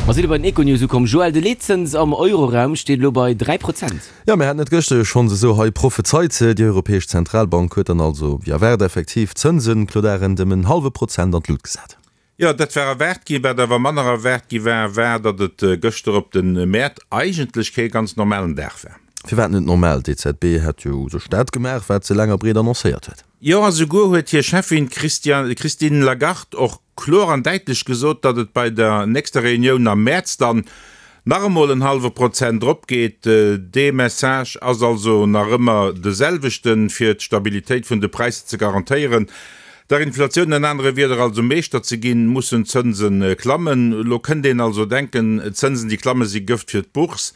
Mer sinn elo bei den Econews ukomm. Joël, de Leetzëns am Euroraum steet elo bei 3 Prozent. Jo, mir haten et gëschter jo schonns esou hei prophezeit. Déi Europäesch Zentralbank huet dann also, wéi erwaart, effektiv d'Zënsen, Claude Arend, ëm en hallwe Prozent an d'Lut gesat. Jo, dat war erwaart ginn. Wat awer manner erwaart gi war, war, datt et gëschter op de Mäert eigentlech kee ganz normalen Dag war. Firwat net normal? D'EZB hätt jo u sech dat gemaach, wat se laang a breet annoncéiert huet. Jo, a souguer huet hir Cheffin Christine Lagarde och kloer an däitlech gesot, datt et bei der nächster Reunioun am Mäerz dann nach emol en hallwe Prozent erop geet. Dee Message ass also nach ëmmer de selwechten, fir d'Stabilitéit vun de Präisser ze garantéieren, der Inflatioun an anere Wierder also Meeschter ze ginn, mussen d'Zënse klammen. Elo kënnt een also denken, Zënsen déi klamme si Gëft fir d'Bourse.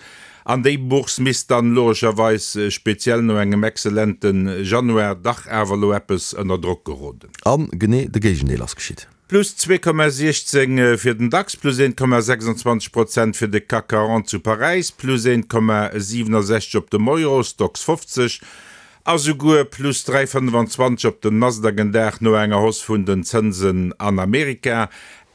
An déi Bourse misst dann logescherweis, speziell no engem excellente Januar, dach awer elo eppes ënner Drock geroden. A genee de Géigendeel ass geschitt. Plus 2,16 fir den Dax, plus 1,26 Prozent fir de CAC 40 zu Paräis, plus 1,67 op dem Euro Stoxx 50 a souguer plus 3,25 op den Nasdaq en Dag no enger Hausse vun den Zënsen an Amerika.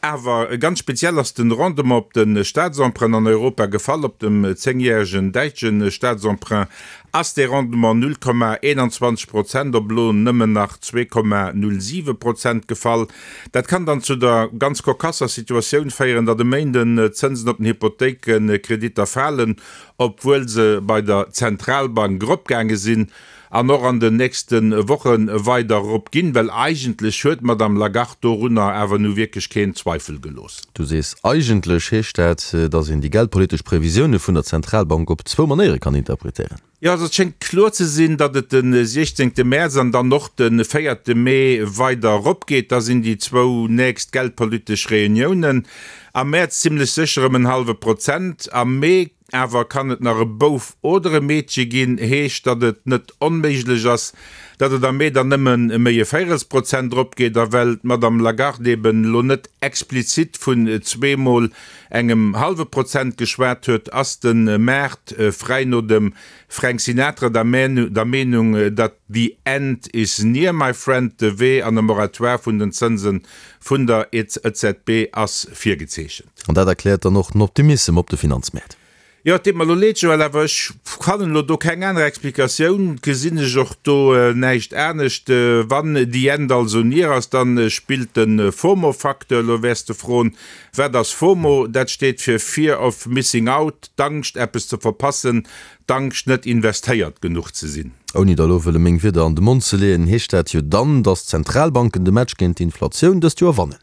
Awer ganz speziell ass den Rendement op de Staatsemprunt an Europa gefall. Op dem zéngjäregen däitsche Staatsemprunt ass dee Rendement 0,21 Prozent op elo nëmmen nach 2,07 Prozent gefall. Dat kann dann zu der ganz kokasser Situatioun féieren, datt e Méinden d'Zënsen op den Hypothéikekreditter falen, obwuel se bei der Zentralbank eropgaange sinn. An och an den nächste Woche weider erop ginn, well eigentlech huet d'Madame Lagarde dorunner awer nu wierklech keen Zweifel gelooss. Du sees eigentlech. Heescht dat, datt een déi geldpolitesch Previsioune vun der Zentralbank op zwou Manéiere kann interpretéieren? Jo, also et schéngt kloer ze sinn, datt et de 16 Mäerz an dann och de 4 Mee weider erop geet. Da sinn déi zwou nächst geldpolitesch Reuniounen. Am Mäerz zimmlech sécher ëm en hallwe Prozent, am Mee Awer kann et nach e Bouf oder e Meedche ginn, heescht, datt et net onméiglech ass, datt et am Mee dann nëmme méi e Véirelsprozent eropgeet. A well d'Madame Lagarde eben elo net explizit vun zweemol engem hallwe Prozent geschwat huet, ass de Maart, fräi no dem Frank Sinatra, der Meenung, datt the end is near, my friend, de Wee an e Moratoire vun den Zënse vun der EZB ass virgezeechent. An dat erkläert dann och den Optimissem op de Finanzmäert. Jo, et deet mer elo leed, Joël, awer ech fannen elo do keng aner Explikatioun, gesinn ech och do näischt anescht. Wann the end also near ass, dann spillt de FOMO-Facteur. Elo wäers de froen, Wat ass FOMO? Dat steet fir Fear of Missing Out, d'Angscht eppes ze verpassen, d'Angscht net investéiert genuch ze sinn. Ouni der elo wëlle meng Wierder an de Mond ze leeën, heescht dat jo dann, datt d'Zentralbanken de Match géint d'Inflatioun dëst Joer wannen.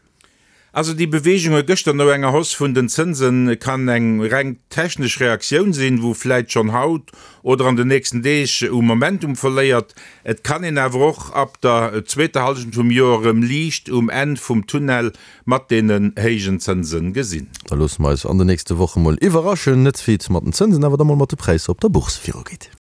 Also déi Beweegunge gëschter no enger Hausse vun den Zënse kann eng reng technesch Reaktioun sinn, wou vläit schonn haut oder an den nächsten Deeg u Momentum verléiert. Et kann een awer och ab der zweeter Hallschent vum Joer erëm Liicht um Enn vum Tunnel mat deenen héijen Zënse gesinn. Da loosse mer eis an de nächste Woche mol iwwerraschen, net wéi et mat den Zënsen, awer da mol mat de Präisser op der Bourse virugeet.